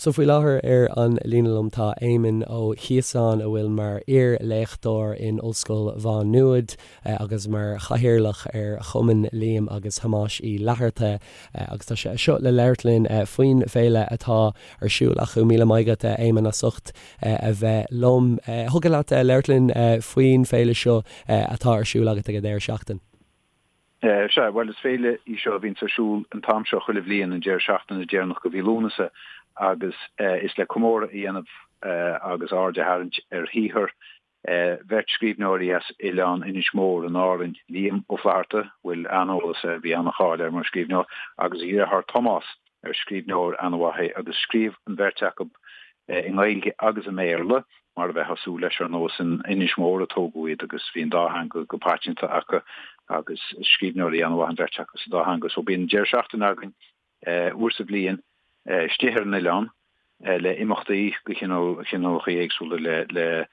So faoi láthair ar an líne liom tá Éamonn Ó Ciosáin a bhfuil mar iar-léachtóir in Ollscoil Mhá Nuad agus mar chathaoirleach ar Chumann Liam agus Thomáis Uí Fhlatharta agus tá sé anseo le labhairt linn faoin bhféile atá ar siúl acu. Míle maith agat Éamonn as ucht a bheith liom. Thiocfadh leat labhairt linn faoin bhféile seo atá ar siúl agat ag an deireadh seachtaine? Sea, bhuel, is féile í seo a bhíonns ar siúl an t-am seo chuile bhliain, an deireadh seachtaine deireanach de mhí Lúnasa, agus is le comóradh a dhéanamh agus aird a tharraingt ar shaothar bheirt scríbhneoirí as oileán Inis Mór in Árainn, Liam Ó Flaithearta, a bhfuil an-eolas air, bhí an-cháil air mar scríbhneoir, agus a dheartháir Tomás, ar scríbhneoir an-mhaith é, agus scríobh an bheirt acu i nGaeilge agus i mBéarla, mar a bheifeá ag súil leis, ar ndóigh, is in Inis Mór a tógadh iad agus bhí an dá theanga go paiteanta acu agus scríbhneoirí an-mhaith an bheirt acu sa dá theanga. So bíonn deireadh seachtaine againn uair sa bhliain istigh ar an oileán le imeachtaí de chineálacha éagsúla le le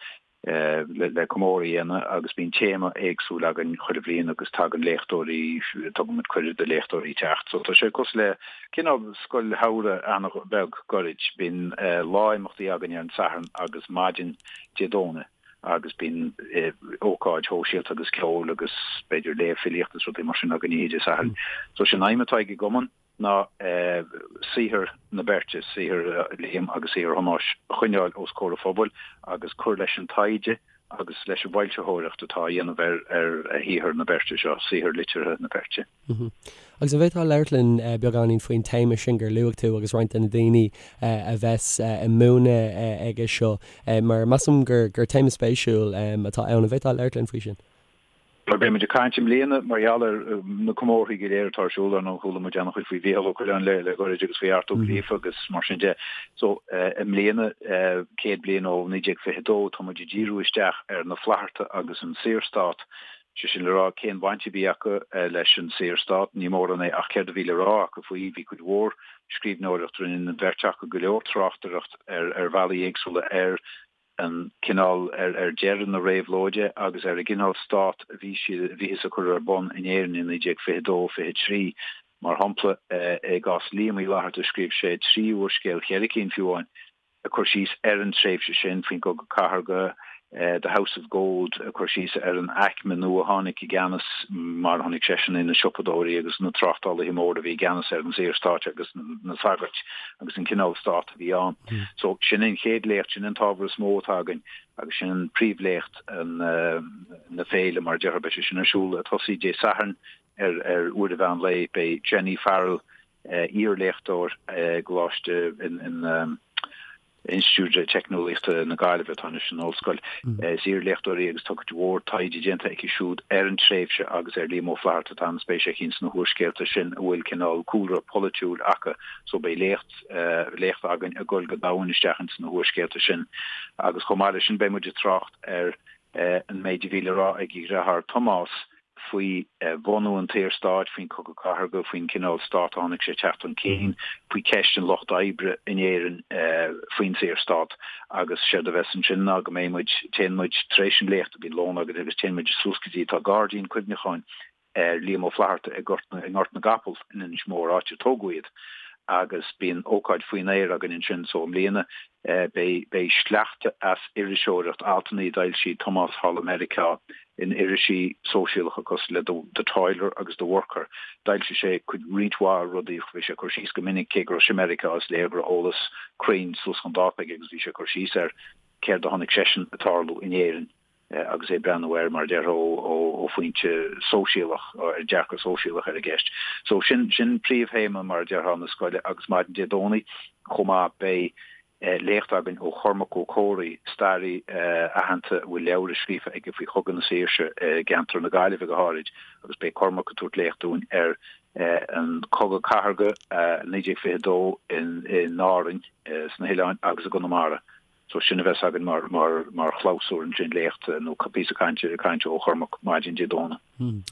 le comóradh a dhéanamh agus bíonn téama éagsúil againn chuile bhliain agus tagann léachtóirí, tugann muid cuireadh do léachtóirí teacht. So tá sé cosúil le cineál scoil shamhraidh an-bheag gairid. Bíonn lá imeachtaí againn ar an Satharn agus maidin Dé Domhnaigh agus bíonn ócáid shóisialta agus ceoil agus b'fhéidir léamh filíochta is rudaí mar sin againn oíche Dé Sathairn. So sin aidhm atá ag an gcumann. ná saothar na beirte, saothar Liam agus saothar Thomáis, a choinneáil os comhair an phobail agus cur leis an taighde agus leis an bhfoilsitheoireacht atá á dhéanamh ar shaothar na beirte seo, saothar liteartha na beirte. Agus an bhféadfá labhairt linn beagáinín faoin téama sin gur luaigh tú agus roinnt de na daoine a bheas ag múineadh aige seo, mar measaim gur téama spéisiúil atá ann. An bhféadfá labhairt linn faoi sin? Bhuel, beidh muid ag caint i mbliana mar gheall ar na comórthaí go léir atá ar siúl, ar ndóigh chuala muid an-chuid faoi Mhícheál Ó Coileáin le le gairid agus faoi Art Ó Gríofa agus mar sin de. So, i mbliana, 100 bliain ó 1922, tá muid ag díriú isteach ar na Flaithearta agus an Saorstát, sé sin le rá cén bhaint a bhí acu leis an Saorstát, ní mórán é ach céard a bhí le rá acu faoi. Bhí cuid mhór scríbhneoireacht, rinne an bheirt acu go leor tráchtaireacht ar ar bhealaí éagsúla ar an cineál, ar deireadh na réabhlóide agus ar an gcineál stát a bhí siad, a bhíothas ag cur ar bun in Éirinn i 1922, 23. Mar shampla, i gcás Liam Uí Fhlaithearta scríobh sé 3 úrscéal, cheithre cinn fiú amháin, ag cur síos ar an tréimhse sin, faoin gCogadh Cathartha, The House of Gold, ag cur síos ar an aicme nua a tháinig i gceannas, mar a chonaic seisean é, na siopadóirí agus na tráchtálaithe móra a bhí i gceannas ar an Saorstát agus na sagairt agus an cineál stát a bhí ann. So, sin an chéad léacht, sin an t-ábhar is mó atá againn agus sin an príomhléacht na féile, mar a déarfá. Beidh sé sin ar siúl ag tosaí Dé Sathairn ar ar uair an mheán lae. Beidh Jenny Farrell, iar-léachtóir i gColáiste in Institiúid Teicneolaíochta na Gaillimhe, atá anois in ollscoil. Is iar-léachtóir í agus tá cuid mhór taighde déanta aici siúd ar an tréimhse agus ar Liam Ó Flaithearta. Tá an-spéis aici ins na húrscéalta sin a bhfuil cineál cúlra polaitiúil acu. So beidh léacht léacht againn ag dul go domhain isteach ins na húrscéalta sin agus chomh maith leis sin beidh muid ag trácht ar an méid a bhí le rá ag a dheartháir Tomás faoi bhunú an tSaorstáit, faoin Chogadh Cathartha, faoin cineál stát a chonaic sé ag teacht chun cinn, faoi cheist an lucht oibre in Éirinn faoin Saorstát agus séard a bheas ansin ná go mbeidh muid, téann muid tar éis an léachta, bíonn lón againn agus téann muid suas go dtí, tá gairdín cuimhneacháin ar Liam Ó Flaithearta i nGort i nGort na gCapall in Inis Mór, áit ar tógadh iad, agus bíonn ócáid faoin aer againn ansin. So i mbliana beidh beidh sleachta as iriseoireacht, altanna a d'fhoilsigh Tomás thall i Meiriceá in irisí sóisialacha cosúil le The Toiler agus The Worker. D'fhoilsigh sé cuid roinnt mhaith rudaí, bhí sé ag cur síos go minic, cé go raibh sé i Meiriceá is léir go raibh eolas cruinn suas chun dáta aige agus bhí sé ag cur síos ar céard a chonaic seisean ag tarlú in Éirinn. agus é ag breathnú air, mar a déarfá, ó phointe sóisialach, ar dearcadh sóisialach ar an gceist. So sin, sin príomhthéama, mar a déarfá, na scoile agus maidin Dé Domhnaigh chomh maith beidh léacht againn ó Chormac Ó Comhraí, staraí aitheanta a bhfuil leabhra scríofa aige faoi Chogadh na Saoirse i gceantar na Gaillimhe go háirid agus beidh Cormac ag tabhairt léacht dúinn ar an Cogadh Cathartha 1922 in Árainn, sna hoileáin agus i gConamara. So sin a bheas againn mar, mar, mar chlabhsúr ansin, léacht nó píosa cainte, cainte ó Chormac maidin Dé Domhnaigh.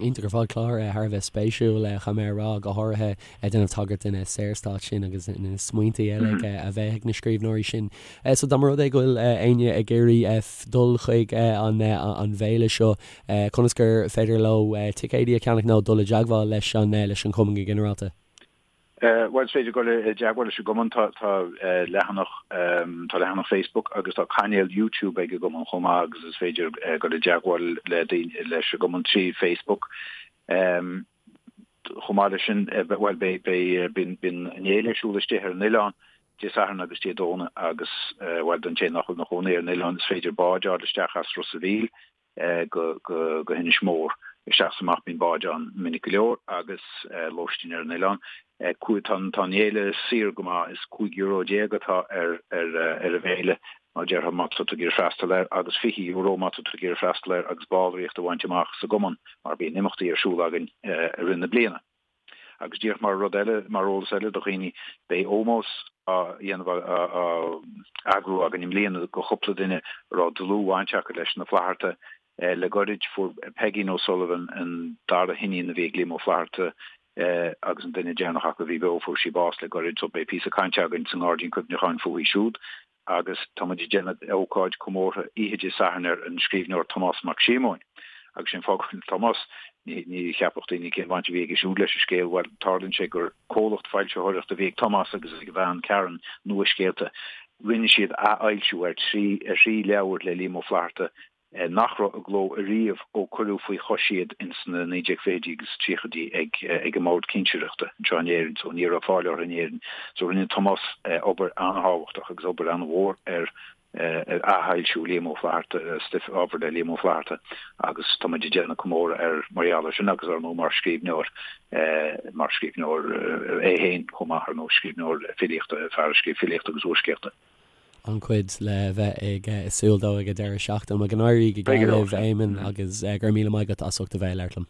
Iontach ar fad, clár thar a bheith spéisiúil, caithfidh mé a rá, go háirithe ag déanamh tagairt den Saorstát sin agus na smaointe eile a bheith ag na scríbhneoirí sin. So dá mba rud é go bhfuil éinne ag iarraidh dul chuig an an bhféile seo, conas gur féidir leo ticéidí a cheannach nó dul i dteagmháil leis an leis an chumann go ginearálta? Bhuel, is féidir dul i dteagmháil leis an gcumann. Tá leathanach, tá leathanach Facebook agus tá cainéal YouTube ag an gcumann chomh maith agus is féidir dul i dteagmháil le daoine, leis an gcumann trí Facebook. Chomh maith leis sin, bhuel, beidh, beidh, bíonn, bíonn an fhéile ar siúl istigh ar an oileán Dé Sathairn agus Dé Domhnaigh agus, bhuel, don té nach bhfuil ina chónaí ar an oileán, is féidir bád a fháil isteach as Ros a' Mhíl go hInis Mór. Isteach is amach bíonn báid ann minic go leor agus lóistín ar an oileán. Tá an fhéile saor go maith, is €15 atá ar an bhféile mar déarfá má tá tú ag iarraidh freastal air agus €20 má tá tú ag iarraidh freastal air agus ballraíocht a bhaint amach sa gcumann mar bíonn imeachtaí ar siúl againn i rith na bliana. Agus díreach mar rud eile, mar eolas eile do dhaoine, beidh ómós á dhéanamh, á eagrú againn i mbliana do chúpla duine a raibh dlúthbhaint acu leis na Flaithearta. Le goirid, fuair Peigín O'Sullivan, an dara hiníon a bhí ag Liam Ó Flaithearta agus an duine deireanach acu a bhí beo, fuair sí bás le goirid, so beidh píosa cainte againn sa nGairdín Cuimhneacháin fúithi siúd. agus tá muid ag déanamh ócáid comórtha oíche Dé Sathairn ar an scríbhneoir Tomás Mac Síomóin. Agus sé an fáth go bhfuil Tomás, ní cheapfadh daoine cén bhaint a bhí aige siúd leis an scéal, bhuel, tarlaíonn sé gur comhlacht foilsitheoireachta a bhí ag Tomás agus ag a bhean Karen, Nua-Scéalta. Rinne siad athfhoilsiú ar thrí leabhar le Liam Ó Flaithearta nach raibh i gcló ariamh ó cuireadh faoi chois iad ins na 1920idí agus 30idí ag ag an mBord Cinsireachta anseo in Éirinn so ní raibh fáil orthu in Éirinn. So rinne Tomás obair an-thábhachtach agus obair an-mhór ar ar athfhoilsiú Liam Ó Flaithearta, stuif, ábhar le Liam Ó Flaithearta agus tá muid ag déanamh comóradh air mar gheall air sin agus ar ndóigh mar scríbhneoir mar scríbhneoir é féin chomh maith ar ndóigh, scríbhneoir filíochta, fear a scríobh filíocht agus úrscéalta. an-chuid le bheith ag súil dó ag an deireadh seachtaine. Go n-éirí go geal libh, Éamonn, agus go raibh míle maith agat as ucht a bheith ag labhairt liom.